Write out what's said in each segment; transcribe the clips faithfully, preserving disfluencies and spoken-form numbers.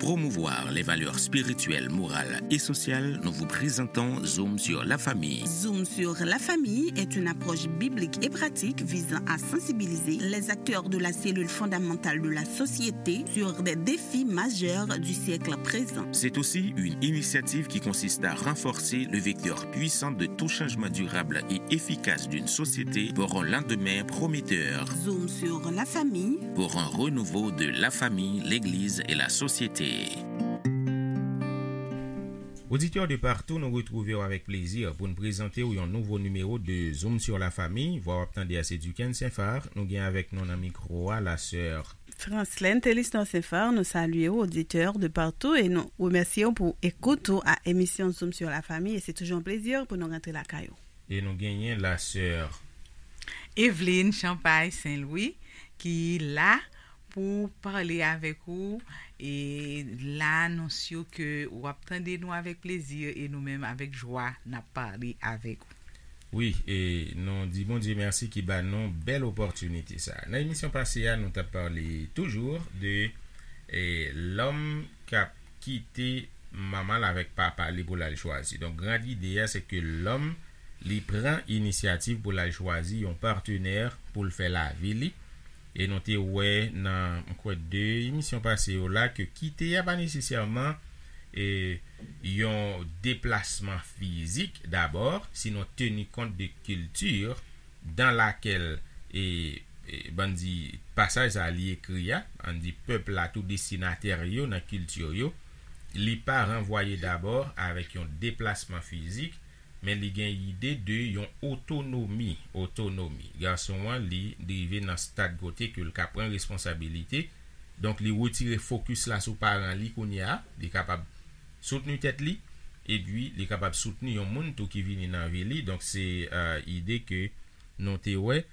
promouvoir les valeurs spirituelles, morales et sociales, nous vous présentons Zoom sur la famille. Zoom sur la famille est une approche biblique et pratique visant à sensibiliser les acteurs de la cellule fondamentale de la société sur des défis majeurs du siècle présent. C'est aussi une initiative qui consiste à renforcer le vecteur puissant de tout changement durable et efficace d'une société pour un lendemain prometteur. Zoom sur la famille. Pour un renouveau de la famille, l'Église et la société. Oditè de partou, nou retwouve w avèk plezi pou n prezante w yon nouvo nimewo de Zoom sur la famille. Vwa w ap tande a se Duquesne Saint-Phar. Nou gen avèk nou nan mikwo a la sè Franslène Thélistan Saint-Phar, nou salye w, oditè de partou, e nou remèsye w pou ekout ou a emisyon Zoom sur la famille. E se toujou yon plezi pou nou rantre lakay ou. E nou genyen la sè Evelyne Champagne Saint-Louis, ki la pou pale avèk ou e la nou si ke w ap tande nou avèk plezi e nou menm avèk jwa n ap pale avèk ou. Wi, e nou di Bondye mèsi ki ba nou bèl opòtinite sa. Nan emisyon pase a, nou t ap pale toujou de e, lòm k ap kite manman l avèk papa li pou l al chwazi. Donk, gran ide a, se ke lòm, li pran inisyativ pou l al chwazi yon patnè pou l fè lavi li. E nou te wè nan, m kwè, de emisyon pase yo la, ke kite a pa nesesèman e, yon deplasman fizik dabò, sinon teni kont de kilti dans laquelle, e, e, ban n di, pasaj sa a li ekri a, ann di pèp la tou destinatè yo nan kilti yo, li pa ranvwaye dabò avèk yon deplasman fizik, men li gen ide de yon otonomi, otonomi. Gason an, li, li rive nan stad kote ke l ka pran responsabilite, donk li retire fokis la sou paran li kounye a, li kapab soutni tèt li, epi li kapab soutni yon moun tou ki vini nan vi li. Donk, se, e, ide ke nou te wè.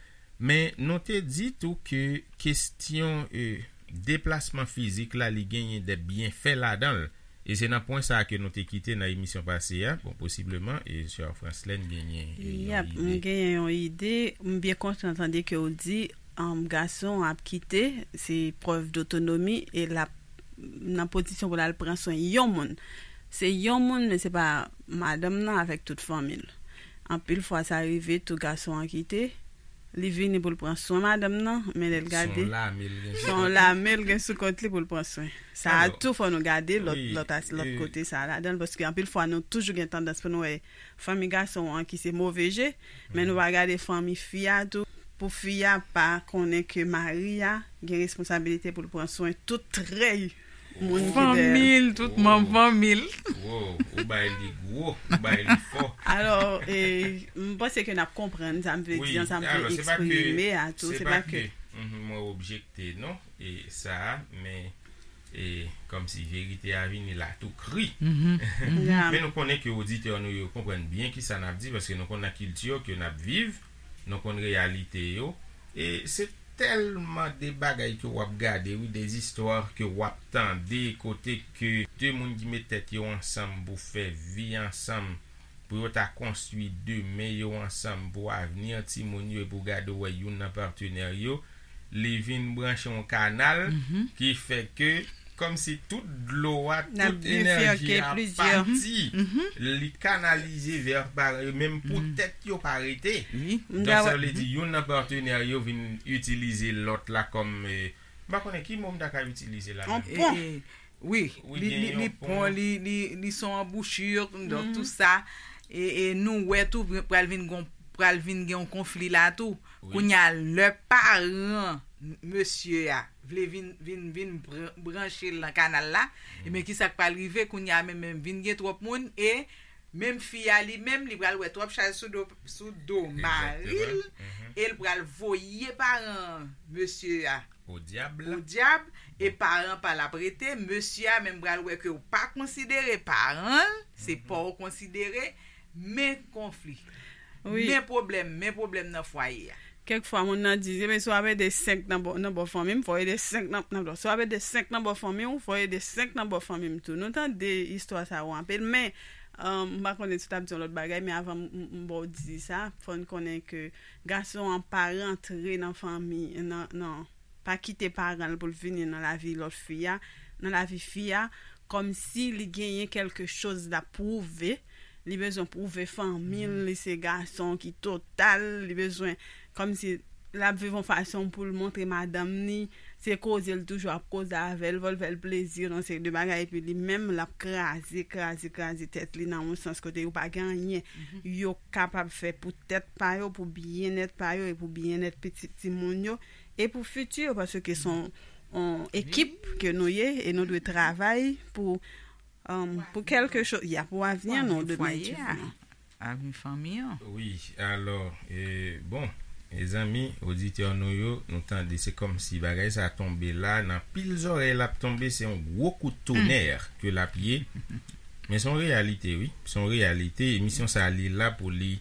Men nou te di tou ke kesyon, e, deplasman fizik la, li genyen de byenfè ladan l. E se nan pwen sa a ke nou te kite nan emisyon pase a. Bon, posibleman, e sè Franslène genyen, e, yon Yap, m ide. Genyen yon ide. M byen kontan tande ke w di, um, gason ap kite, se prèv dotonomi, e l ap nan pozisyon pou l al pran swen yon moun. Se yon moun, men se pa madanm nan avèk tout fanmi l. Anpil fwa, sa rive tou gason an kite, li vini pou l pran swen madanm nan, men lè l gade, se yon lame l gen sou kont li pou l pran swen. Sa a tou, fò nou gade lòt, lòt as-, lòt kote sa a ladan l, paske anpil fwa, nou toujou gen tandans pou nou wè fanmi gason an ki se move je, men nou pa gade fanmi fi a tou, pou fi a pa konnen ke mari a gen responsabilite pou l pran swen tout trèy moun ki dèyè l. Fanmi l, tout manm fanmi l. Wow, ou bay li gwo, ou bay li fò. Alò, e, m panse ke n ap konprann sa m vle di an, sa m vle eksprime a tou. Se pa ke, mhm, mwen objekte, non, e sa a, men, e, kòmsi verite a vini la tou kri. Men nou konnen ke oditè nou yo konprann byen kisa n ap di, paske nou konn nan kilti ke n ap viv, nou konn reyalite yo, e se tèlman de bagay ke w ap gade, wi, de zistwa ke w ap tande, kote ke de moun ki met tèt yo ansanm pou fè vi ansanm, pou yo ta konstwi demen yo ansanm, pou avni timoun yo, epi w gade w wè youn nan patnè yo, li vin branche yon kanal ki fè ke kòmsi tout dlo a, tout enèji a pati, li kanalize vè paran yo, menm pou tèt yo pa rete. Donk, sa vle di, youn nan patnè yo vin itilize lòt la kòm, e, m pa konnen ki mo m ta ka itilize la menm. E, e, wi, li, li, li pon, li, li, li son anbouchi, donk, tou sa. E, e nou wè tou, pral vin gon, pral vin gen yon konfli la tou. Kounye a, lè paran mesye a vle vin, vin, vin bran-, branche l nan kanal la, ebyen, kisa k pral rive? Kounye a, menm, menm vin gen twòp moun, e menm fi a li menm, li pral wè twòp chaj sou do, sou do mari l, e l pral voye paran mesye a odyab, e paran pa l ap rete, mesye a menm pral wè ke w pa konsidere paran l, se pa w konsidere, men konfli. Men pwoblèm, men pwoblèm nan fwaye a. Kèk fwa, moun nan di, "Ebyen, si w ap ede senk nan bò, nan bò fanmi m, fò w ede senk nan, nan bò. Si w ap ede senk nan bò fanmi w, fò w ede senk nan bò fanmi m tou." Nou tande istwa sa yo anpil, men, um, m pa konnen si w t ap di yon lòt bagay, men avan m, m, m ba w di sa, fò n konnen ke gason an pa rantre nan fanmi, nan, nan, pa kite paran l pou l vini nan lavi lòt fi a, nan lavi fi a, kòmsi li genyen kèlke choz l ap pwouve. Li bezwen pwouve fanmi l, li se gason ki total, li bezwen kòmsi l ap viv yon fason pou l montre madanm ni, se koze l toujou ap koze avè l, fò l fè l plezi nan seri de bagay, epi li menm l ap kraze, kraze, kraze tèt li nan yon sans kote yo pa gen anyen yo kapab fè pou tèt pa yo, pou byennèt pa yo e pou byennèt pitit timoun yo e pou fiti yo, paske se yon, yon ekip ke nou ye e nou dwe travay pou, um, pou kèlke choz, ya, pou avni an, nou dwe mete. Avni fanmi an. Wi, alò, e, bon, mezanmi, oditè nou yo, nou tande, se kòmsi bagay sa tonbe la, nan pil zòrèy l ap tonbe, se yon gwo kout tonè ke l ap ye. Men se yon reyalite, wi, se yon reyalite. Emisyon sa, li la pou li,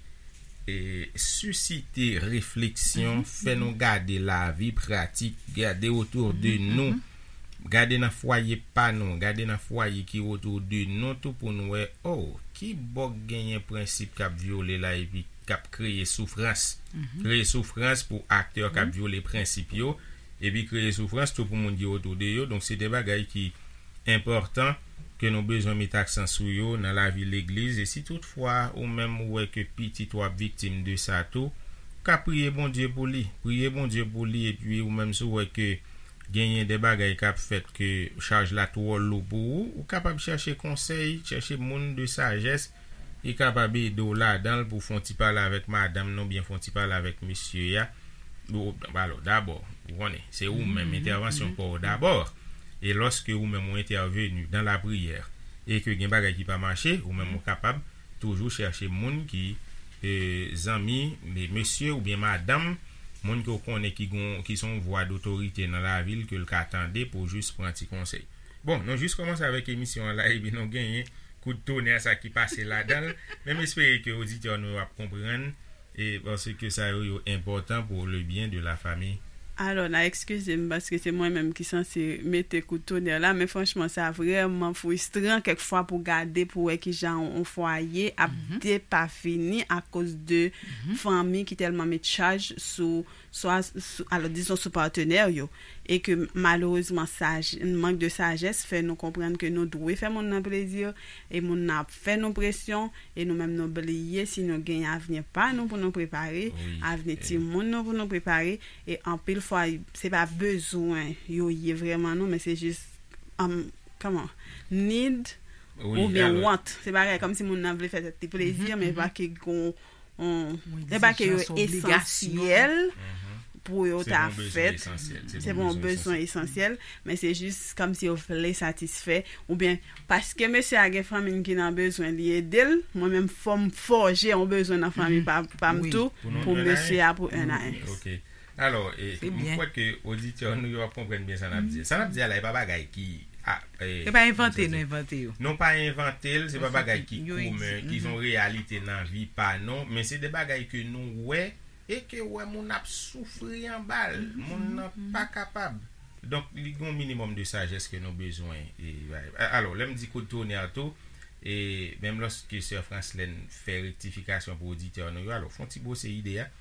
e, sisite refleksyon, fè nou gade lavi pratik, gade otou de nou, gade nan fwaye pa nou, gade nan fwaye ki otou de nou tou pou nou wè, oh, ki bòk genyen prensip k ap vyole la epi k ap kreye soufrans. Kreye soufrans pou aktè k ap vyole prensip yo, epi kreye soufrans tou pou moun ki otou de yo. Donk, se de bagay ki enpòtan ke nou bezwen mete aksan sou yo nan lavi legliz. E si toutfwa ou menm ou wè ke pitit ou ap viktim de sa tou, ka priye Bondye pou li. Priye Bondye pou li, epi ou menm si w wè ke genyen de bagay k ap fèt ke chaj la twò lou pou ou, ou kapab chèche konsèy, chèche moun de sajès ki kapab ede w ladan l pou fè yon ti pale avèk madanm nan oubyen fè yon ti pale avèk mesye a. Ou, alò, dabò, ou konnen, se ou menm, entèvansyon pa w dabò. E lòske ou menm ou entèveni dan lapriyè e ke gen bagay ki pa mache, ou menm ou kapab toujou chèche moun ki, e, zanmi, me-, mesye oubyen madanm, moun ke w konnen ki gon, ki se yon vwa dotorite nan lavi l ke l ka tande pou jis pran ti konsèy. Bon, nou jis kòmanse avèk emisyon an la, epi nou genyen kout tonè sa ki pase ladan l. Men m espere ke oditè nou yo ap konprann, e paske sa yo, yo enpòtan pou le byen de la fami. Alò, n a eskize m paske se mwen menm ki sanse mete kout tonè la, men franchman, sa vrèman fristran kèk fwa pou gade, pou wè kijan yon, yon fwaye ap depafini akoz de fanmi ki tèlman met chaj sou, swa, sou, alò, dizon, sou patnè yo, e ke malerezman, saj-, mank de sajès fè nou konprann ke nou dwe fè moun nan plezi, e moun nan ap fè nou presyon, e nou menm nou bliye si nou gen avni pa nou pou nou prepare, avni timoun nou pou nou prepare, e anpil fwa, se pa bezwen yo ye vrèman non, men se jis, um, kòman, need oubyen want. Se bagay kòmsi moun nan vle fè tèt li plezi, men pa ke gon, on, se pa ke yo esansyèl pou yo ta fèt. Se pa yon bezwen esansyèl, men se jis kòmsi yo vle satisfè, oubyen paske mesye a gen fanmi ki nan bezwen, li ede l, mwen menm fò m fòje yon bezwen nan fanmi pa, pa m tou, pou mesye a, pou N A S. Alò, e, m kwè ke oditè nou yo ap konprann byen sa n ap di. Sa n ap di a la, e pa bagay ki, a, e, e pa envante nou envante yo. Nou pa envante l, se pa bagay ki komen, ki se yon reyalite nan vi pa nou, men se de bagay ke nou wè e ke wè moun ap soufri anba l, moun nan pa kapab. Donk, li gen yon minimòm de sajès ke nou bezwen. E, a-, alò, lè m di kout tonè tou, e menm lòske sè Franslèn fè rektifikasyon pou oditè nou yo, alò, fè yon ti bwose ide a.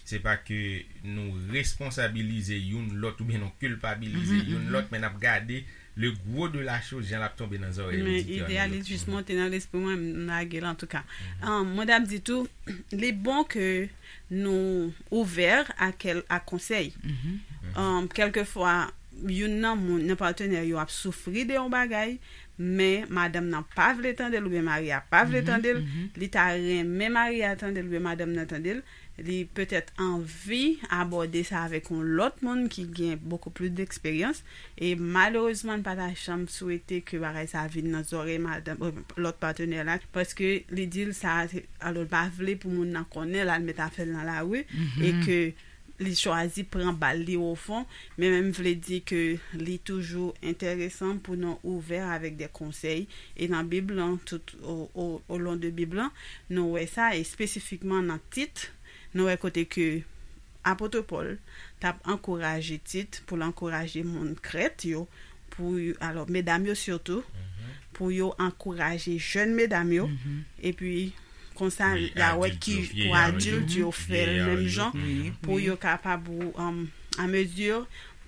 Se pa ke nou responsabilize youn lòt oubyen nou kilpabilize youn lòt, men n ap gade le gwo de la choz, jan l ap tonbe nan zòrèy oditè nou yo. Men ide a li jis monte nan lespri mwen, m lage l antouka. Ahn, mwen t ap di tou, li bon ke nou ouvè a kèl-, a konsèy. Ahn, kèlkefwa, youn nan moun, nan patnè yo ap soufri de yon bagay, men madanm nan pa vle tande l oubyen mari a pa vle tande l, li ta renmen mari a tande l oubyen madanm nan tande l, li petèt anvi abòde sa avèk yon lòt moun ki gen beaucoup plus d'expérience, e malerezman, n pa ta janm swete ke bagay sa vin nan zòrèy madanm, euh, lòt patnè la, paske li di l sa, se, alò, l pa vle pou moun nan konnen, l al met afè l nan lari, e ke li chwazi pran bal li ofon, men menm vle di ke li toujou enteresan pou nou ouvè avèk de konsèy, e nan Bib lan, tout o, o, o lon de Bib lan, nou wè sa, espesifikman nan Tit, nou wè kote ke apot Pòl t ap ankouraje Tit pou l ankouraje moun Krèt yo, pou, alò, medam yo sitou, pou yo ankouraje jèn medam yo, epi konsa, y a wè ki pou adilt yo fè l menm jan, pou yo kapab, um, a mezi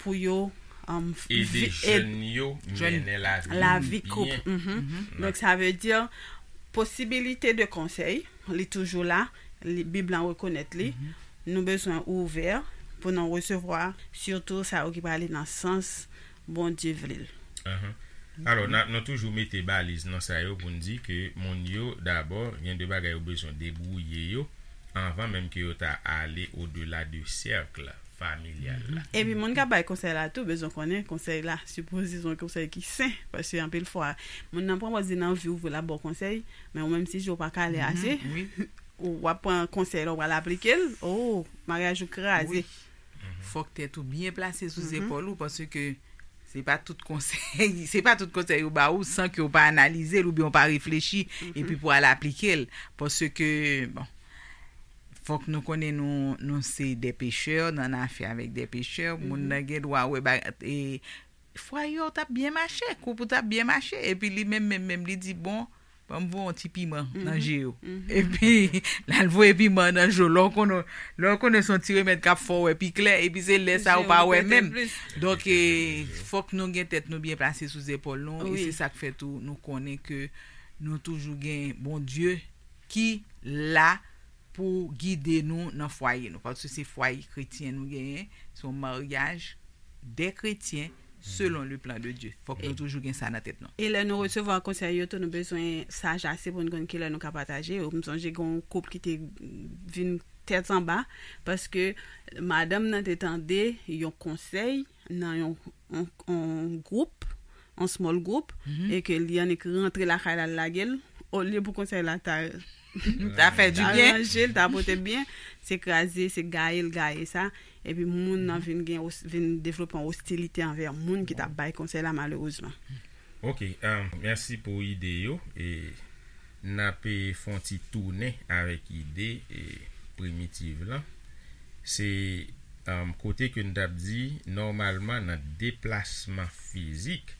pou yo um, ede vi- ed- jèn yo mennen lavi lavi koup. Mhm. Donk, sa vle di posibilite de konsèy, li toujou la, li, Bib lan rekonèt li. Nou bezwen ouvè pou nou resevwa, sitou sa yo ki prale nan sans Bondye vle l. Ahan. Alò, n a- nou toujou mete baliz nan sa yo pou n di ke moun yo, dabò, gen de bagay yo bezwen debwouye yo anvan menm ke yo ta ale odela de sèk familyal la. Epi moun k ap bay konsèy la tou bezwen konnen konsèy la sipoze se yon konsèy ki sen, paske anpil fwa moun nan pran pòz li nan anvi ou vle l ap ba w konsèy, men ou menm si je w pa kale ase, ou w ap pran konsèy la, ou pral aplike l, oh, maryaj ou kraze. Fòk tèt ou byen plase sou zepòl ou, paske se pa tout konsèy se pa tout konsèy yo ba ou san ke ou pa analize l oubyen ou pa reflechi epi pou al aplike l, paske bon, fòk nou konnen nou nou se de pechè, nou an afè avèk de pechè, moun nan gen dwa wè ba e fwaye w t ap byen mache, koup ou t ap byen mache, epi li menm menm menm li di bon, ban m voye yon ti piman nan je yo. Epi l al voye piman nan je w, lè w konnen lè w konnen se yon ti remèd k ap fè w wè pi klè, epi se lè sa ou pa wè menm. Donk, fòk nou gen tèt nou byen plase sou zepòl nou, e se sa k fè tou nou konnen ke nou toujou gen Bondye ki la pou gide nou nan fwaye nou, paske se fwaye kretyen nou genyen, se yon maryaj de kretyen selon le plan de Dieu. Fòk nou toujou gen sa nan tèt nou. E lè nou resevwa konsèy yo tou, nou bezwen saj ase pou n konn kilè nou ka pataje yo. M sonje gen yon koup ki te vin tèt anba paske madanm nan te tande yon konsèy nan yon yon gwoup, yon small group, e ke li annik rantre lakay la, l lage l, olye pou konsèy la ta ta fè di byen, ranje l, ta pote byen, se kraze, se gaye l gaye sa, epi moun nan vin gen vin devlope yon ostilite anvè moun ki t ap bay konsèy la malerezman. Ok, mèsi pou ide yo. E n ap fè yon ti tounen avèk ide primitiv lan. Se kote ke n t ap di nòmalman nan deplasman fizik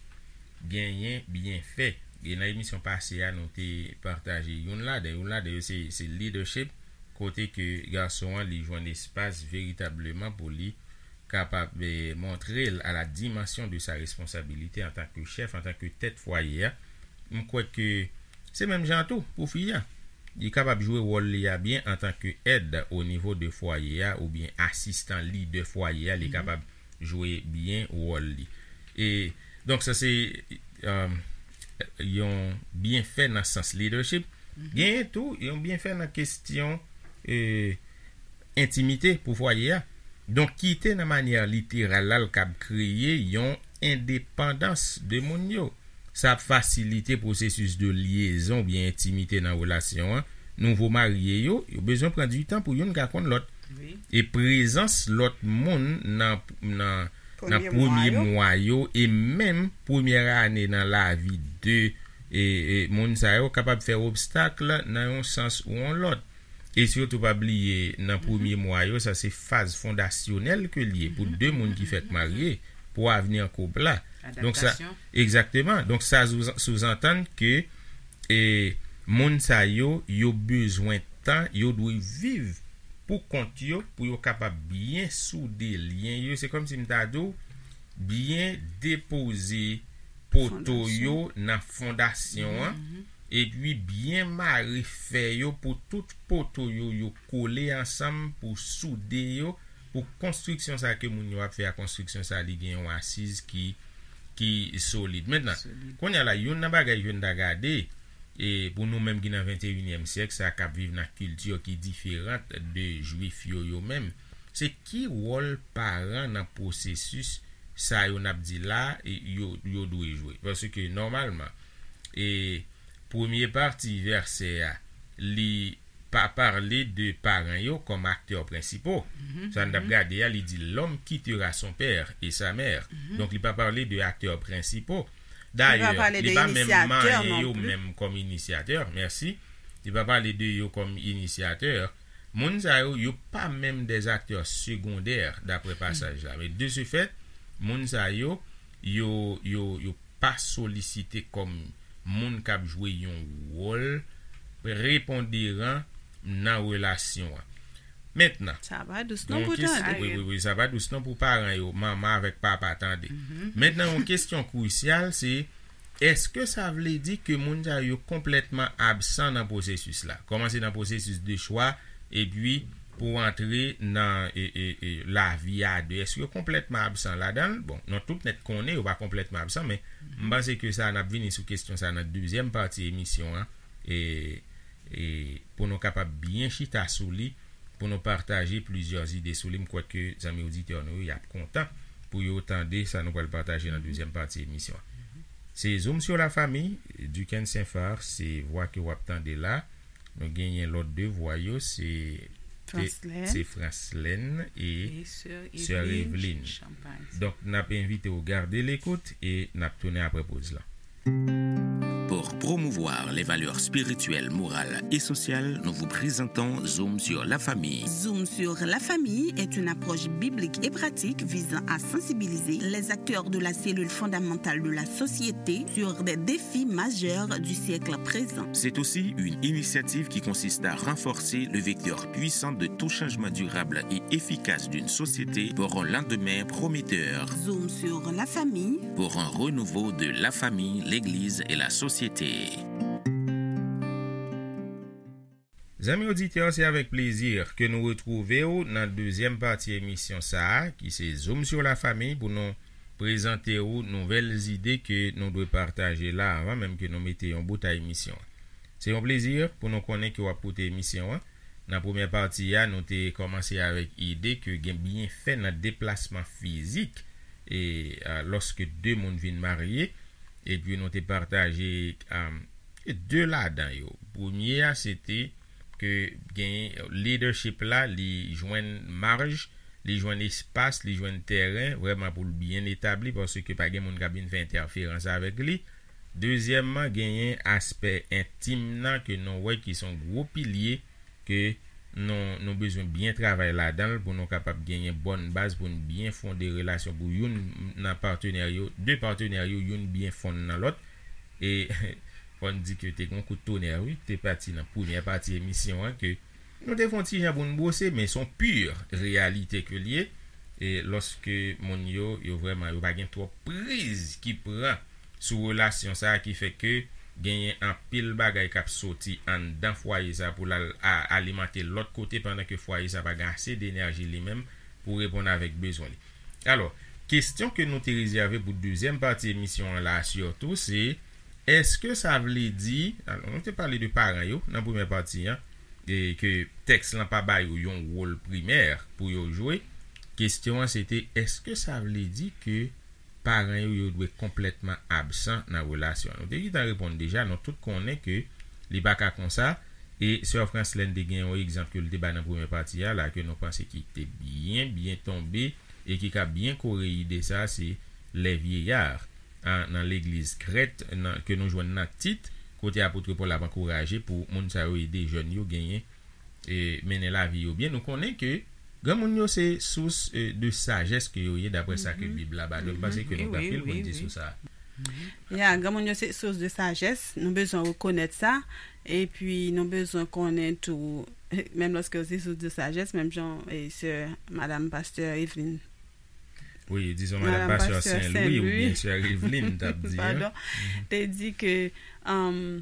genyen byenfè. E nan emisyon pase a nou te pataje youn ladan youn ladan yo se se leadership, kote ke gason an li jwenn espas veritableman pou li kapab montre l a la dimansyon de sa responsabilite antan ke chèf, antan ke tèt fwaye a. M kwè ke se menm jan tou pou fi a. Li kapab jwe wòl li a byen antan ke èd o nivo de fwaye a oubyen asistan lidè fwaye a, li kapab jwe byen wòl li. E donk sa se yon byenfè nan sans leadership. Genyen tou yon byenfè nan kesyon entimite pou fwaye a. Donk kite nan manyè literal la l kab kreye yon endepandans de moun yo. Sa ap fasilite pwosesis de lyezon oubyen entimite nan relasyon an. Nouvo marye yo, yo bezwen pran di tan pou youn ka konn lòt. E prezans lòt moun nan nan nan premye mwa yo e menm premyè ane nan lavi de e, e, moun sa yo kapab fè obstak nan yon sans ou yon lòt. E sitou pa bliye nan premye mwa yo, sa se faz fondasyonèl ke l ye pou de moun ki fèk marye pou avni koup la. Donk sa, egzakteman. Donk sa souzantann ke e, moun sa yo, yo bezwen tan, yo dwe viv pou kont yo pou yo kapab byen soude lyen yo. Se kòmsi m ta di w, byen depoze poto yo nan fondasyon an, epi byen mare fè yo pou tout poto yo yo kole ansanm pou soude yo, pou konstriksyon sa ke moun yo ap fè a, konstriksyon sa li gen yon asiz ki ki solid. Mentnan, kounye a la, youn nan bagay ke n ta gade, e pou nou menm ki nan venteyinyèm syèk, sa k ap viv nan kilti ki diferan de jwif yo yo menm, se ki wòl paran nan pwosesis sa yo n ap di la yo yo dwe jwe. Paske nòmalman, e premye pati vèsè a, li pa pale de paran yo kòm aktè prensipo. Sa n t ap gade a, li di, l'homme quittera son père et sa mère. Donk, li pa pale de aktè prensipo. Dayè, li pa menm manyen yo menm kòm inisyatè. Mèsi. Li pa pale de yo kòm inisyatè. Moun sa yo, yo pa menm des acteurs secondaires, daprè pasaj la. Men de ce fait, moun sa yo, yo, yo, yo pa solisite kòm moun k ap jwe yon wòl preponderan nan relasyon an. Mentnan, sa pa dous non pou tande. Wi, wi, wi, sa pa dous non pou paran yo, manman avèk papa tande. Mentnan, yon kesyon krisyal, se, èske sa vle di ke moun sa yo konplètman absan nan pwosesis la? Kòmanse nan pwosesis de chwa, epi pou antre nan e, e, e, lavi a de. Èske yo konplètman absan ladan l? Bon, nou tout nèt konnen yo pa konplètman absan, men m panse ke sa, n ap vini sou kesyon sa nan dezyèm pati emisyon an, e, e pou nou kapab byen chita sou li, pou nou pataje plizyè ide sou li. M kwè ke zanmi oditè nou yo, y ap kontan pou yo tande sa nou pral pataje nan dezyèm pati emisyon an. Se Zoom sur la famille, Duckens Saint-Phar, se vwa ke w ap tande la. Nou genyen lòt de vwa yo, se Franslène. Se Franslène e Sè Eveline. Donk, n ap envite w gade lekout e n ap tounen apre poz la. Pour promouvoir les valeurs spirituelles, morales et sociales, nous vous présentons Zoom sur la famille. Zoom sur la famille est une approche biblique et pratique visant à sensibiliser les acteurs de la cellule fondamentale de la société sur des défis majeurs du siècle présent. C'est aussi une initiative qui consiste à renforcer le vecteur puissant de tout changement durable et efficace d'une société pour un lendemain prometteur. Zoom sur la famille. Pour un renouveau de la famille, l'Église et la société. Zanmi oditè, se avèk plezi ke nou retwouve w nan dezyèm pati emisyon sa a, ki se Zoom sur la famille, pou nou prezante w nouvèl ide ke nou dwe pataje la, avan menm ke nou mete yon bout a emisyon an. Se yon plezi pou nou konnen ke w ap koute emisyon an. Nan premyè pati a, nou te kòmanse avèk ide ke gen byenfè nan deplasman fizik, e, a, lòske de moun vin marye, epi nou te pataje, a, de ladan yo. Premye a, se te ke gen leadership la, li jwenn maj, li jwenn espas, li jwenn tèren, vrèman pou l byen etabli, paske pa gen moun k ap vin fè entèferans avèk li. Dezyèmman, genyen aspè entim nan ke nou wè ki se yon gwo pilye ke nou, nou bezwen byen travay ladan l pou nou kapab genyen bòn baz pou n byen fonde relasyon pou youn nan patenè yo, de patenè yo, youn byen fonn nan lòt. E fò n di ke te gen yon kout tonè, wi, te pati nan premyè pati emisyon an ke nou te fè yon ti jan pou n bwose, men se yon pi reyalite ke l ye. E lòske moun yo, yo vrèman, yo pa gen twòp priz ki pran sou relasyon sa a ki fè ke genyen anpil bagay k ap soti anndan fwaye sa a pou l al a-, alimante lòt kote, pandan ke fwaye sa a pa gen ase denèji li menm pou reponn avèk bezwen li. Alò, kesyon ke nou te rezève pou dezyèm pati emisyon an la, sitou, se, èske sa vle di, alò, nou te pale de paran yo nan premyè pati an, e ke tèks lan pa ba yo yon wòl primè pou yo jwe. Kesyon an, se te, èske sa vle di ke paran yo, yo dwe konplètman absan nan relasyon an? Nou te gentan reponn deja, nou tout konnen ke li pa ka konsa. E sè Franslène te gen yon egzanp ke l te bay nan premyè pati a la, ke nou panse ki te byen, byen tonbe, e ki ka byen kore ide sa, se les vieillards, a, nan legliz Krèt, nan, ke nou jwenn nan Tit, kote apot Pòl ap ankouraje pou moun sa yo ede jèn yo genyen, e, mennen lavi yo byen. Nou konnen ke granmoun yo se sous, e, de sajès ke yo ye, daprè sa ke Bib la ba nou. M panse ke nou gen anpil pou n di sou sa. Ya, granmoun yo se sous de sajès. Nou bezwen rekonèt sa. Epi, nou bezwen konnen tou, menm lòske yo se sous de sajès, menm jan, e, sè, madam pastè Eveline. Wi, dizon, madam pastè Sen Lwi oubyen sè Eveline t ap di, an. Padon. Te di ke, um,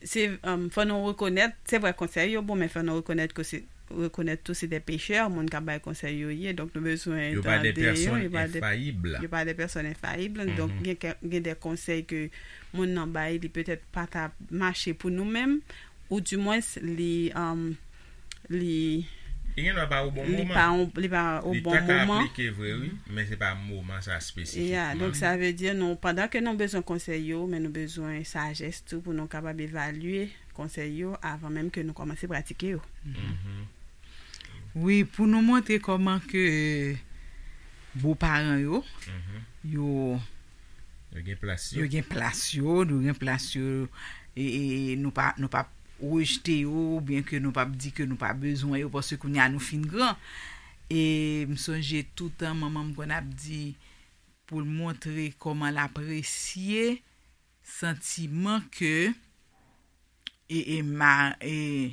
se, um, fò nou rekonèt, se vre konsèy yo bon, men fò nou rekonèt ke se, rekonèt tou se de pechè, moun k ap bay konsèy yo ye. Donk, nou bezwen tande yo. Yo pa de pèsòn enfayib. Yo pa de pèsòn enfayib. Donk, gen ke, gen de konsèy ke moun nan bay, li petèt pa ta mache pou nou menm, ou dimwens, li, um, li, li gen dwa pa o bon moman. Li pa o bon moman. Li ta ka aplike vre, wi, men se pa moman sa espesifikman. Ya, donk, sa vle di, nou, pandan ke nou bezwen konsèy yo, men nou bezwen sajès tou pou nou kapab evalye konsèy yo avan menm ke nou kòmanse pratike yo. Wi, pou nou montre kòman ke boparan yo, yo, yo gen plas yo, yo gen plas yo, yo gen plas yo, e, e, e nou pa, nou p ap rejte yo, oubyen ke nou p ap di ke nou pa bezwen yo, paske kounye a nou fin gran. E m sonje toutan manman m konn ap di pou l montre kòman l apresye santiman ke e, e, ma, e,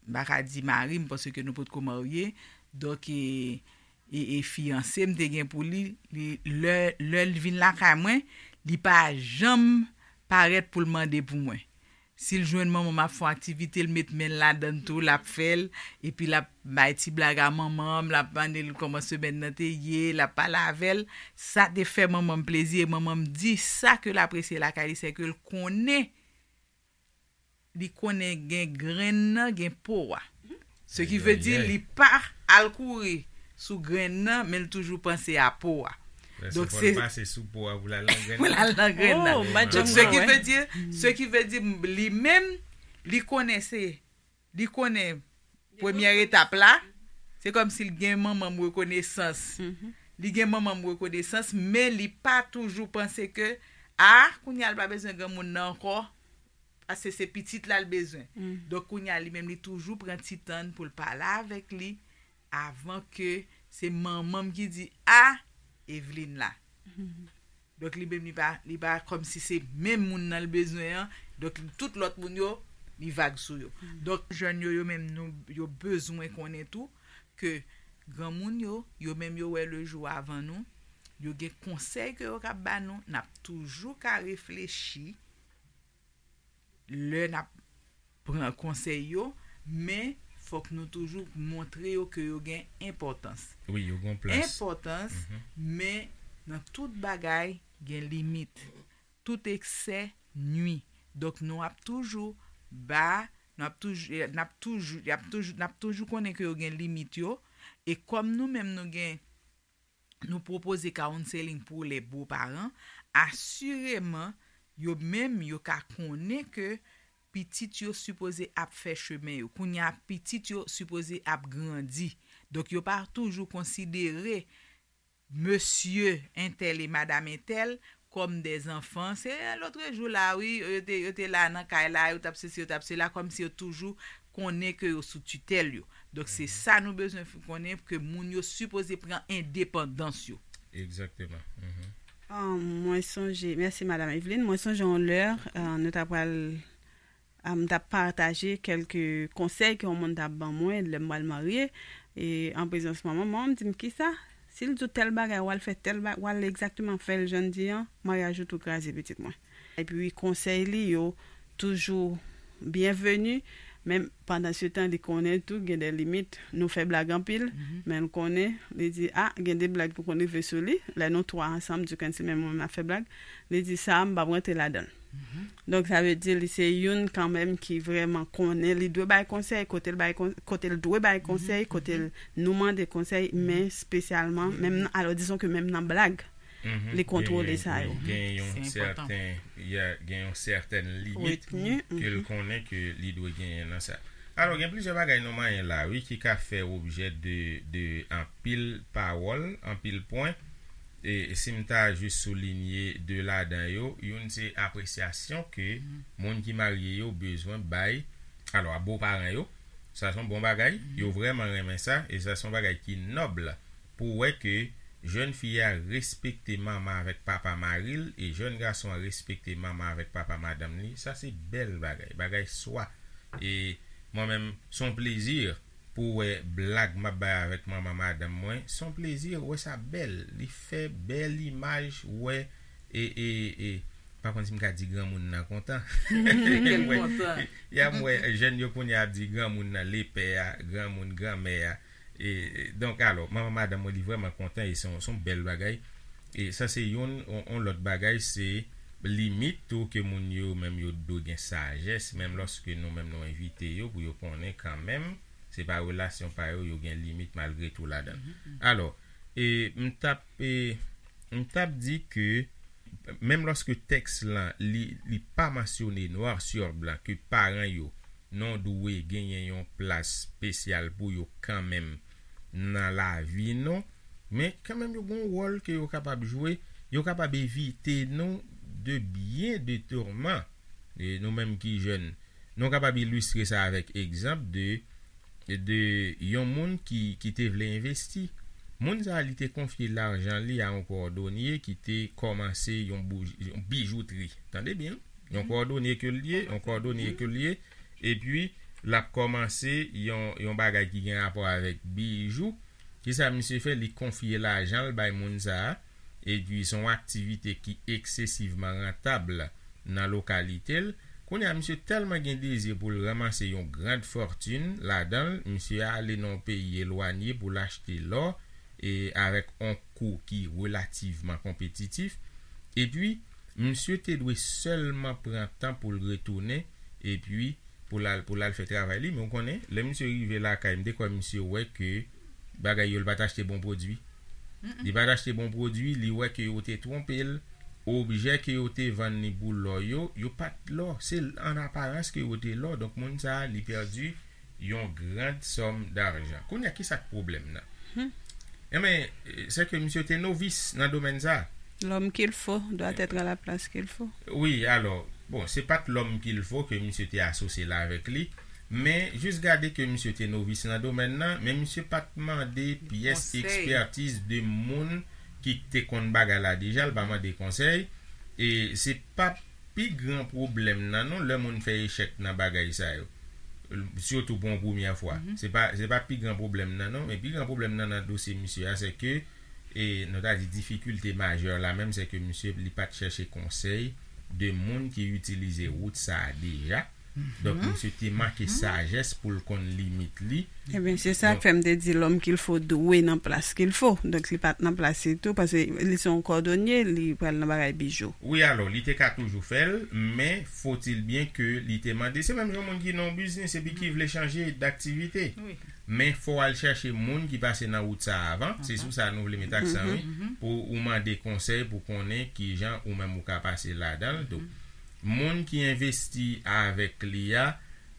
m pa ka di mari m paske nou potko marye. Donk, e, e, e fiyanse m te gen pou li, li, lè, lè l vin lakay mwen, li pa janm parèt pou l mande pou mwen. Si l jwenn manman m ap fè yon aktivite, l met men l ladan l tou, l ap fè l, epi l ap bay ti blag a manman m, l ap mande l kòman semèn nan te ye, l ap pale avè l. Sa te fè manman m plezi, e manman m di sa ke l apresye lakay li, se ke l konnen, li konnen gen grenn nan, gen po a. Ce qui veut dire, li pa al kouri sou grenn nan, men l toujou panse a po a. Donk, se pase sou po a pou l al nan grenn nan. Pou l al nan grenn nan. Oh, m pa t janm konnen. Donk, ce qui veut dire, ce qui veut dire, li menm, li konnen se, li konnen premyè etap la, se kòmsi l gen manman m rekonesans. Li gen manman m rekonesans, men li pa toujou panse ke, a, kounye a l pa bezwen granmoun nan ankò, paske se pitit la l bezwen. Donk, kounye a, li menm, li toujou pran ti tan pou l pale avèk li avan ke se manman m ki di, a, Evelyne la. Donk, li menm, li pa, li pa kòmsi se menm moun nan l bezwen an. Donk, tout lòt moun yo, li vag sou yo. Donk, jèn yo, yo menm, nou, yo bezwen konnen tou ke granmoun yo, yo menm, yo wè lejou avan nou. Yo gen konsèy ke yo kab ba nou. N ap toujou ka reflechi lè n ap pran konsèy yo, men fòk nou toujou montre yo ke yo gen enpòtans. Wi, yo gen plas. Enpòtans, men nan tout bagay, gen limit. Tout eksè nwi. Donk, nou ap toujou ba, nou ap toujou, n ap toujou, y ap toujou, n ap toujou konnen ke yo gen limit yo. E kòm nou menm nou gen, nou pwopoze counseling pou les beaux parents, asireman, yo menm, yo ka konnen ke pitit yo sipoze ap fè chemen yo. Kounye a, pitit yo sipoze ap grandi. Donk, yo pa toujou konsidere mesye entèl e madanm entèl kòm de zanfan. Se lòt jou la, wi, yo te, yo te la nan kay la, yo t ap sesi, yo t ap sela, kòmsi yo toujou konnen ke yo sou titèl yo. Donk, se sa nou bezwen f-, konnen, ke moun yo sipoze pran endepandans yo. Egzakteman. Ah, mwen sonje, mèsi, Madam Evelyne. Mwen sonje yon lè, ah, nou ta pral, ah, m t ap pataje kèlke konsèy ke yon moun t ap ban mwen lè m pral marye, e an prezans manman m, manman m di m, "Kisa? Si l di w tèl bagay, w al fè tèl ba-, w al egzakteman fè l jan l di an, maryaj ou tou kraze, pitit mwen." Epi konsèy li yo toujou byenveni, men pandan se tan, li konnen tou gen de limit. Nou fè blag anpil, men l konnen, li di, "A, gen de blag ki konn rive sou li." Lè nou twa ansanm, Duckens li menm mwen, m ap fè blag, li di, "Sa a, m p ap rantre ladan l." Donk, sa vle di, li se youn kanmenm ki vrèman konnen, li dwe bay konsèy, kote l bay kon-, kote l dwe bay konsèy, kote l nou mande konsèy, men espesyalman, menm nan, alò, dizon ke menm nan blag, li kontwole sa yo. Gen yon sèten, gen yon sèten limit ke l konnen ke li dwe genyen nan sa. Alò, gen plizyè bagay nou manyen la, wi, ki ka fè objè de, de anpil pawòl, anpil pwen. E si m ta jis soulinye de ladan yo, youn se apresyasyon ke moun ki marye yo bezwen bay, alò, a bo paran yo, sa se yon bon bagay, yo vrèman renmen sa, e sa se yon bagay ki nòb pou wè ke jèn fi a respekte manman avèk papa mari l, e jèn gason an respekte manman avèk papa madanm li, sa se bèl bagay, bagay swa. E mwen menm, se yon plezi pou wè blag m ap bay avèk manman madanm mwen, se yon plezi wè sa bèl, li fè bèl imaj, wè, e, e, e, pa konn si m ka di granmoun nan kontan. Kèl kontan. Ya m wè jèn yo kounye a ap di granmoun nan lepè a, granmoun granmè a. E, e, donk, alò, manman madanm mwen, li vrèman kontan e se yon, se yon bèl bagay. E sa se youn, yon, yon lòt bagay, se limit tou ke moun yo menm yo dwe gen sajès, menm lòske nou menm nou envite yo pou yo konnen kanmenm, se pa relasyon pa yo, yo gen limit malgre tou ladan. Alò, e, m t ap, e, m t ap di ke menm lòske tèks lan, li, li pa mansyone noir sur blanc ke paran yo non dwe genyen yon plas espesyal pou yo kanmenm nan lavi nou, men kanmenm yo gen yon wòl ke yo kapab jwe, yo kapab evite nou de byen de tourman. E nou menm ki jèn, nou kapab ilistre sa avèk egzanp de, de yon moun ki, ki te vle envesti. Moun sa a, li te konfye lajan li a yon kòdonye ki te kòmanse yon bouj-, yon bijoutri. Tande byen, yon kòdonye ke l ye, yon kòdonye ke l ye, epi L ap kòmanse yon, yon bagay ki gen rapò avèk bijou. Kisa misye fè? Li konfye lajan l bay moun sa a. Epi, se yon aktivite ki eksesivman rantab nan lokalite l. Kounye a, misye tèlman gen dezi pou l ranmase yon grand fòtin ladan l, misye ale nan yon peyi elwanye pou l achte lò, e avèk yon kou ki relativman konpetitif. Epi, misye te dwe sèlman pran tan pou l retounen, epi pou l al, pou l al fè travay li. Men w konnen, lè misye rive lakay, m te kwè misye wè ke bagay yo, l pa t achte bon pwodui. Li pa t achte bon pwodui, li wè ke yo te twonpe l, objè ke yo te vann li pou lò yo, yo pa t lò, se an aparans ke yo te lò. Donk, moun sa a, li pèdi yon grand sòm dajan. Kounye a, kisa k pwoblèm nan? Enben, se ke misye te novis nan domèn sa a. L'homme qu'il faut doit être à la place qu'il faut. Wi, alò, bon, se pa t l'homme qu'il faut ke misye te asosye l avèk li, men jis gade ke misye te novis nan domèn nan, men misye pa t mande pyès ekspètiz de moun ki te konn bagay la deja, l pa mande konsèy, e se pa pi gran pwoblèm nan non, lè moun fè echèk nan bagay sa yo. Sitou pou yon premyè fwa. Se pa, se pa pi gran pwoblèm nan non, men pi gran pwoblèm nan nan dosye misye a, se ke, e nou ta di difikilte majè la menm, se ke misye li pa t chèche konsèy de moun ki itilize wout sa a deja. Donk, misye te manke sajès pou l konn limit li. Ebyen, se sa k fè m te di l'homme qu'il faut dwe nan plas qu'il faut. Donk, li pa t nan plas li tou, paske li se yon kòdonye, li pral nan bagay bijou. Wi, alò, li te ka toujou fè l, men faut-il bien ke li te mande. Se menm jan moun ki nan yon biznis epi ki vle chanje daktivite. Men fò w al chèche moun ki pase nan wout sa a avan. Se sou sa nou vle met aksan, wi. Pou ou mande konsèy, pou konnen kijan ou menm ou ka pase ladan l tou. Moun ki envesti avèk li a,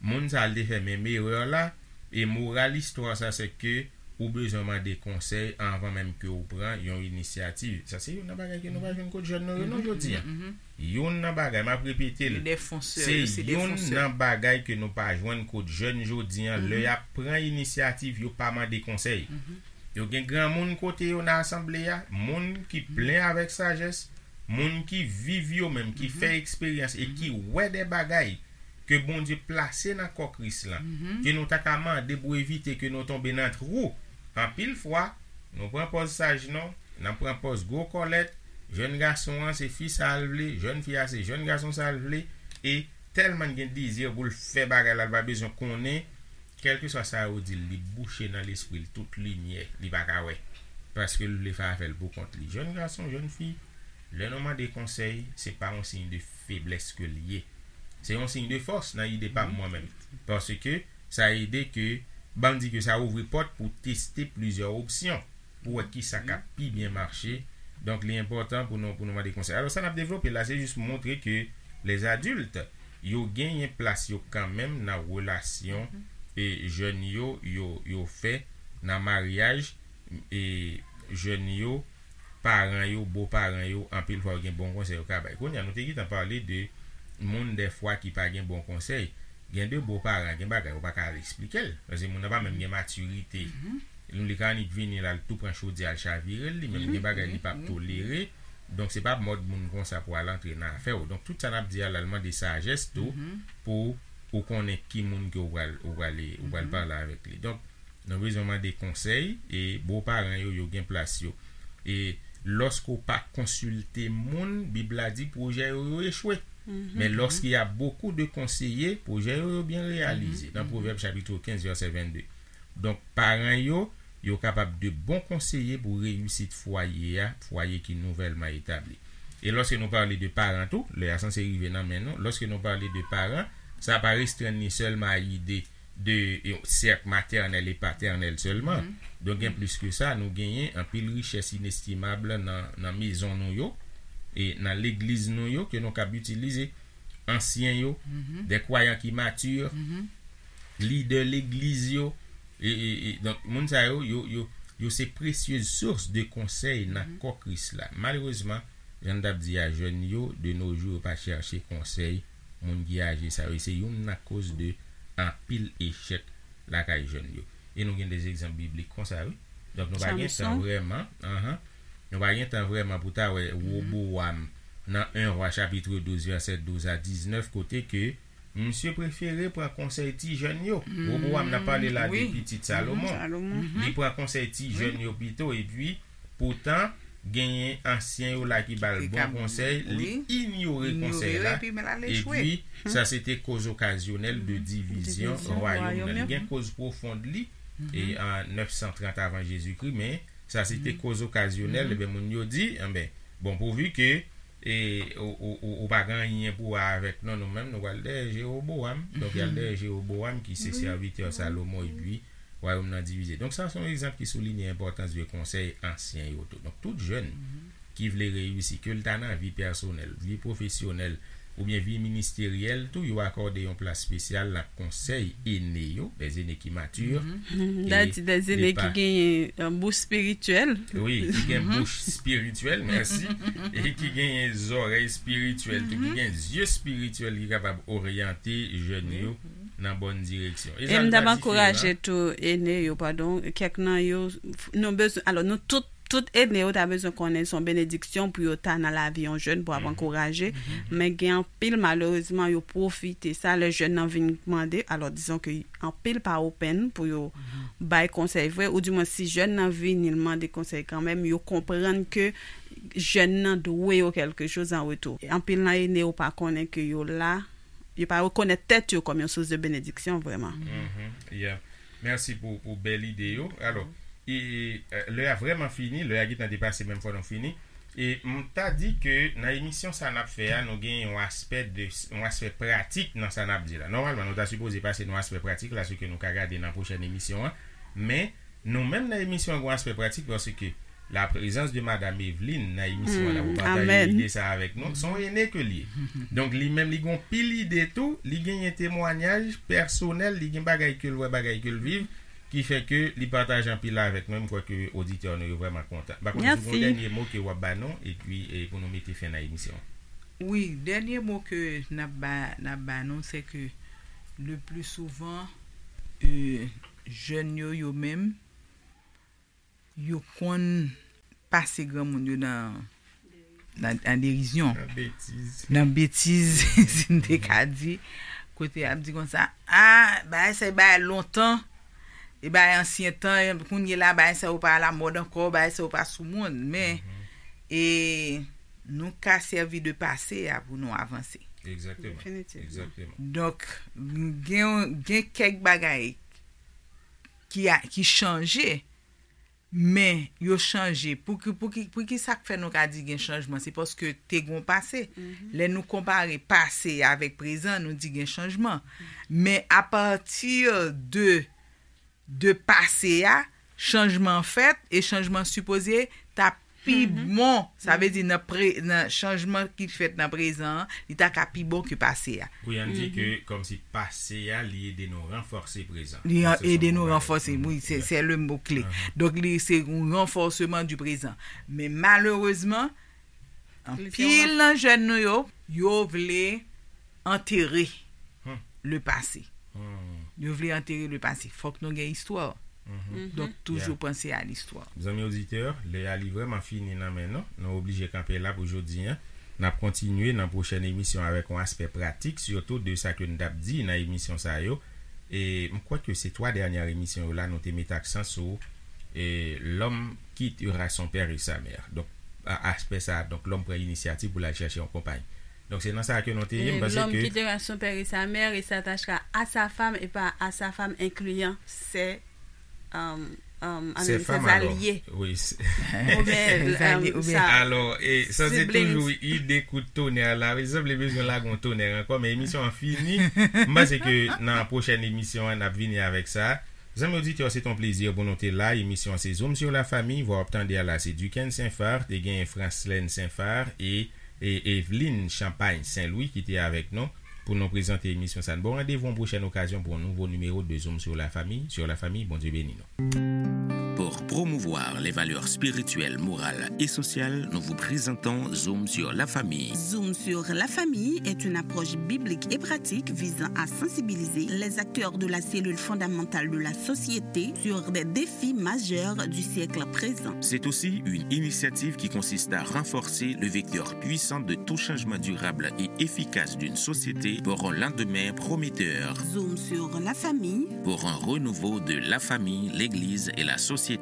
moun sa a, l te fè menm erè la, e moral istwa sa, se ke ou bezwen mande konsèy anvan menm ke ou pran yon inisyativ. Sa se youn nan bagay ke nou pa jwenn kot jèn nou yo non jodi a. Youn nan bagay, m ap repete l, se youn nan bagay ke nou pa jwenn kot jèn jodi a, lè y ap pran inisyativ, yo pa mande konsèy. Yo gen granmoun kote yo nan asanble a, moun ki plen avèk sajès, moun ki viv yo menm, ki fè eksperyans e ki wè de bagay ke Bondye plase nan kò Kris lan, ke nou ta ka mande pou evite ke nou tonbe nan twou. Anpil fwa, nou pran pòz saj non, n ap pran pòz gwo kòlèt, jèn gason an se fi sa l vle, jèn fi a se jèn gason sa l vle, e tèlman l gen dezi pou l fè bagay la, l pa bezwen konnen, kèlkeswa sa yo di l, li bouche nan lespri l tout limyè, li pa ka wè. Paske l vle fè afè l pou kont li. Jèn gason, jèn fi, lè nou mande konsèy, se pa yon siy de feblès ke l ye. Se yon siy de fòs nan ide pa m mwen menm. Paske sa ede ke, ban m di ke sa ouvri pòt pou teste plizyè opsyon, pou wè kisa k ap pi byen mache. Donk, li enpòtan pou nou, pou nou mande konsèy. Alò, sa n ap devlope la, se jis montre ke les adultes, yo genyen plas yo kanmenm nan relasyon e jèn yo, yo, yo fè nan maryaj e jèn yo, paran yo, bo paran yo, anpil fwa yo gen bon konsèy yo ka bay. Kounye a, nou te gentan pale de moun dèfwa ki pa gen bon konsèy. Gen de bo paran, gen bagay ou pa ka al eksplike l. Paske moun nan pa menm gen matirite. Li ka annik vini la, l tou pran chodyè, l chavire l, li menm gen bagay li p ap tolere. Donk, se pa mòd moun konsa pou al antre nan afè w. Donk, tout sa n ap di a la, l mande sajès tou pou ou konnen ki moun ke ou pral, ou pral, ou pral pale avèk li. Donk, nou bezwen mande konsèy e bo paran yo, yo gen plas yo. E lòske ou pa konsilte moun, Bib la di pwojè yo, yo echwe. Men lòske y a bokou de konseye, pwojè yo, yo byen reyalize. Nan Pwovèb chapit kenz, vèsè vennde. Donk, paran yo, yo kapab de bon konseye pou reyisit fwaye a, fwaye ki nouvèlman etabli. E lòske nou pale de paran tou, lè a sanse rive nan men nou, lòske nou pale de paran, sa pa restrenn li sèlman a ide de yon sèk matènèl e patènèl sèlman. Donk, gen plis ke sa, nou genyen anpil richès inestimab nan, nan mezon nou yo, e nan legliz nou yo ke nou kab itilize. Ansyen yo, de kwayan ki mati, lidè legliz yo, e, e, e, donk, moun sa yo, yo, yo, yo se presyez sous de konsèy nan kò Kris la. Malerezman, jan n t ap di a, jèn yo, de nos jours, yo pa chèche konsèy moun ki aje sa yo. E se youn nan koz de anpil echèk lakay jèn yo. E nou gen de egzanp biblik konsa, wi. Donk, nou pa gen tan vrèman, anhan, nou pa gen tan vrèman pou ta wè Wobowam nan en Wa chapit douz, vèsè douz a diznèf, kote ke Misye prefere pran konsèy ti jèn yo. Wobowam nan pale la de pitit Salomon. Li pran konsèy ti jèn yo pito, epi poutan, genyen ansyen yo la ki ba l bon konsèy, li inyore konsèy la. Epi sa se te koz okazyonèl de divizyon wayòm nan. Li gen koz pwofon li, e an nèf san trant avan Jezikri, men sa se te koz okazyonèl. Ebyen, moun yo di, enben, bon, pouvi ke e ou, ou, ou, ou pa gen anyen pou wè avèk nou, nou menm, nou pral dèyè Jewobowam. Donk, y al dèyè Jewobowam, ki se sèvitè Salomon, epi wayòm nan divize. Donk, sa se yon egzanp ki soulinye enpòtans de konsèy ansyen yo tou. Donk, tout jèn ki vle reyisi, ke l ta nan vi pèsonèl, vi pwofesyonèl, oubyen vi ministeryèl tou, yo akòde yon plas espesyal nan konsèy ene yo, les aînés qui maturent. Da di, les aînés ki genyen bouch espirityèl. Wi, ki gen bouch espirityèl, mèsi. E ki genyen zòrèy espirityèl tou, ki gen zye espirityèl ki kapab oryante jèn yo nan bòn direksyon. E m t ap ankouraje tou ene yo, padon, kèk nan yo, nou bezwen, alò, nou tout, tout ene yo ta bezwen konnen se yon benediksyon pou yo ta nan lavi yon jèn, pou ap ankouraje. Men gen anpil, malerezman, yo pwofite sa, lè jèn nan vin mande, alò, dizon ke anpil pa open pou yo bay konsèy vre, oudimwen si jèn nan vini l mande konsèy kanmenm, yo konprann ke jèn nan dwe yo kèlkechoz an retou. Anpil nan ene yo pa konnen ke yo la, yo pa rekonèt tèt yo kòm yon sous de benediksyon vrèman. Mèsi pou, pou bèl ide yo. Alò, e, e, lè a vrèman fini, lè a gentan depase, menm fò nou fini. E m ta di ke nan emisyon sa n ap fè a, nou gen yon aspè de, yon aspè pratik nan sa n ap di la. Nòmalman, nou ta sipoze pase nan aspè pratik la, se ke nou ka gade nan pwochèn emisyon an. Men, nou menm nan emisyon an, gen yon aspè pratik, paske la prezans de Madam Eveline nan emisyon an, la pou pataje ide sa avèk nou. Se yon ene ke l ye. Donk, li menm, li gen yon pil ide tou, li genyen temwanyaj pèsonèl, li gen bagay ke l wè, bagay ke l viv. Ki fè ke li pataje anpil avèk nou, m kwè ke oditè nou yo vrèman kontan. M pa konn si w gen yon dènye mo ke w ap ba nou, epi e, pou nou mete fen nan emisyon an. Wi, dènye mo ke n ap ba, n ap ba nou, se ke le pli souvan, e, jèn yo, yo menm, yo konn pase granmoun yo nan nan, nan derizyon, nan betiz, si n te ka di, kote y ap di konsa, a, bagay sa, e bagay lontan, e bagay ansyen tan, kounye la, bagay sa yo pa alamòd ankò, bagay sa yo pa sou mòd, men, e, nou ka sèvi de pase a pou nou avanse. Egzakteman. Definitivman. Egzakteman. Donk, gen, gen kèk bagay ki, a, ki chanje, men yo chanje. Pou ki, pou ki, pou ki sa k fè nou ka di gen chanjman? Se paske te gen yon pase. Lè nou konpare pase a avèk prezan, nou di gen chanjman. Men apati de, de pase a, chanjman fèt e chanjman sipoze ta pi bon. Sa vle di nan pre, nan chanjman ki fèt nan prezan an, li ta ka pi bon ke pase a. Pou y ann di ke kòmsi pase a, li ede nou ranfòse prezan. Li ede nou ranfòse, wi, se, se le mo kle. Donk, li se yon ranfòseman di prezan. Men malerezman, anpil nan jèn nou yo, yo vle antere le pase. Yo vle antere le pase. Fòk nou gen istwa. Donk, toujou panse a listwa. Zanmi oditè, lè a li vrèman fini nan men nou. Nou oblije kanpe la pou jodi a. N ap kontinye nan pwochèn emisyon avèk yon aspè pratik, sitou de sa ke n t ap di nan emisyon sa yo. E m kwè ke se twa dènyè emisyon yo la, nou te met aksan sou e, l'homme quittera son père et sa mère. Donk, a, aspè sa a, donk, lòm pran inisyativ pou l al chèche yon konpay. Donk, se nan sa a ke nou te ye, m panse ke. L'homme quittera son père et sa mère et s'attachera à sa femme et pas à sa femme, incluant ses, euh, euh, ses alliés. Wi. Oubyen, alò, e sa se toujou ide kout tonè la. Wi, sa vle bezwen lage yon tonè ankò, men emisyon an fini. M panse ke nan pwochèn emisyon an, n ap vini avèk sa. Zanmi oditè, se t on plezi pou nou te la. Emisyon an se Zoom sur la Famille. Vwa w ap tande a la se Duckens Saint-Phar, te gen Franslène Saint-Phar e, e Eveline Champagne Saint-Louis ki te avèk nou pou nou prezante emisyon sa. N ba w randevou yon pwochèn okazyon pou yon nouvo nimewo de Zoom sur la Famille. Sur la Famille, Bondye beni nou. Pour promouvoir les valeurs spirituelles, morales et sociales, nous vous présentons Zoom sur la famille. Zoom sur la famille est une approche biblique et pratique visant à sensibiliser les acteurs de la cellule fondamentale de la société sur des défis majeurs du siècle présent. C'est aussi une initiative qui consiste à renforcer le vecteur puissant de tout changement durable et efficace d'une société pour un lendemain prometteur. Zoom sur la famille. Pour un renouveau de la famille, l'Église et la société.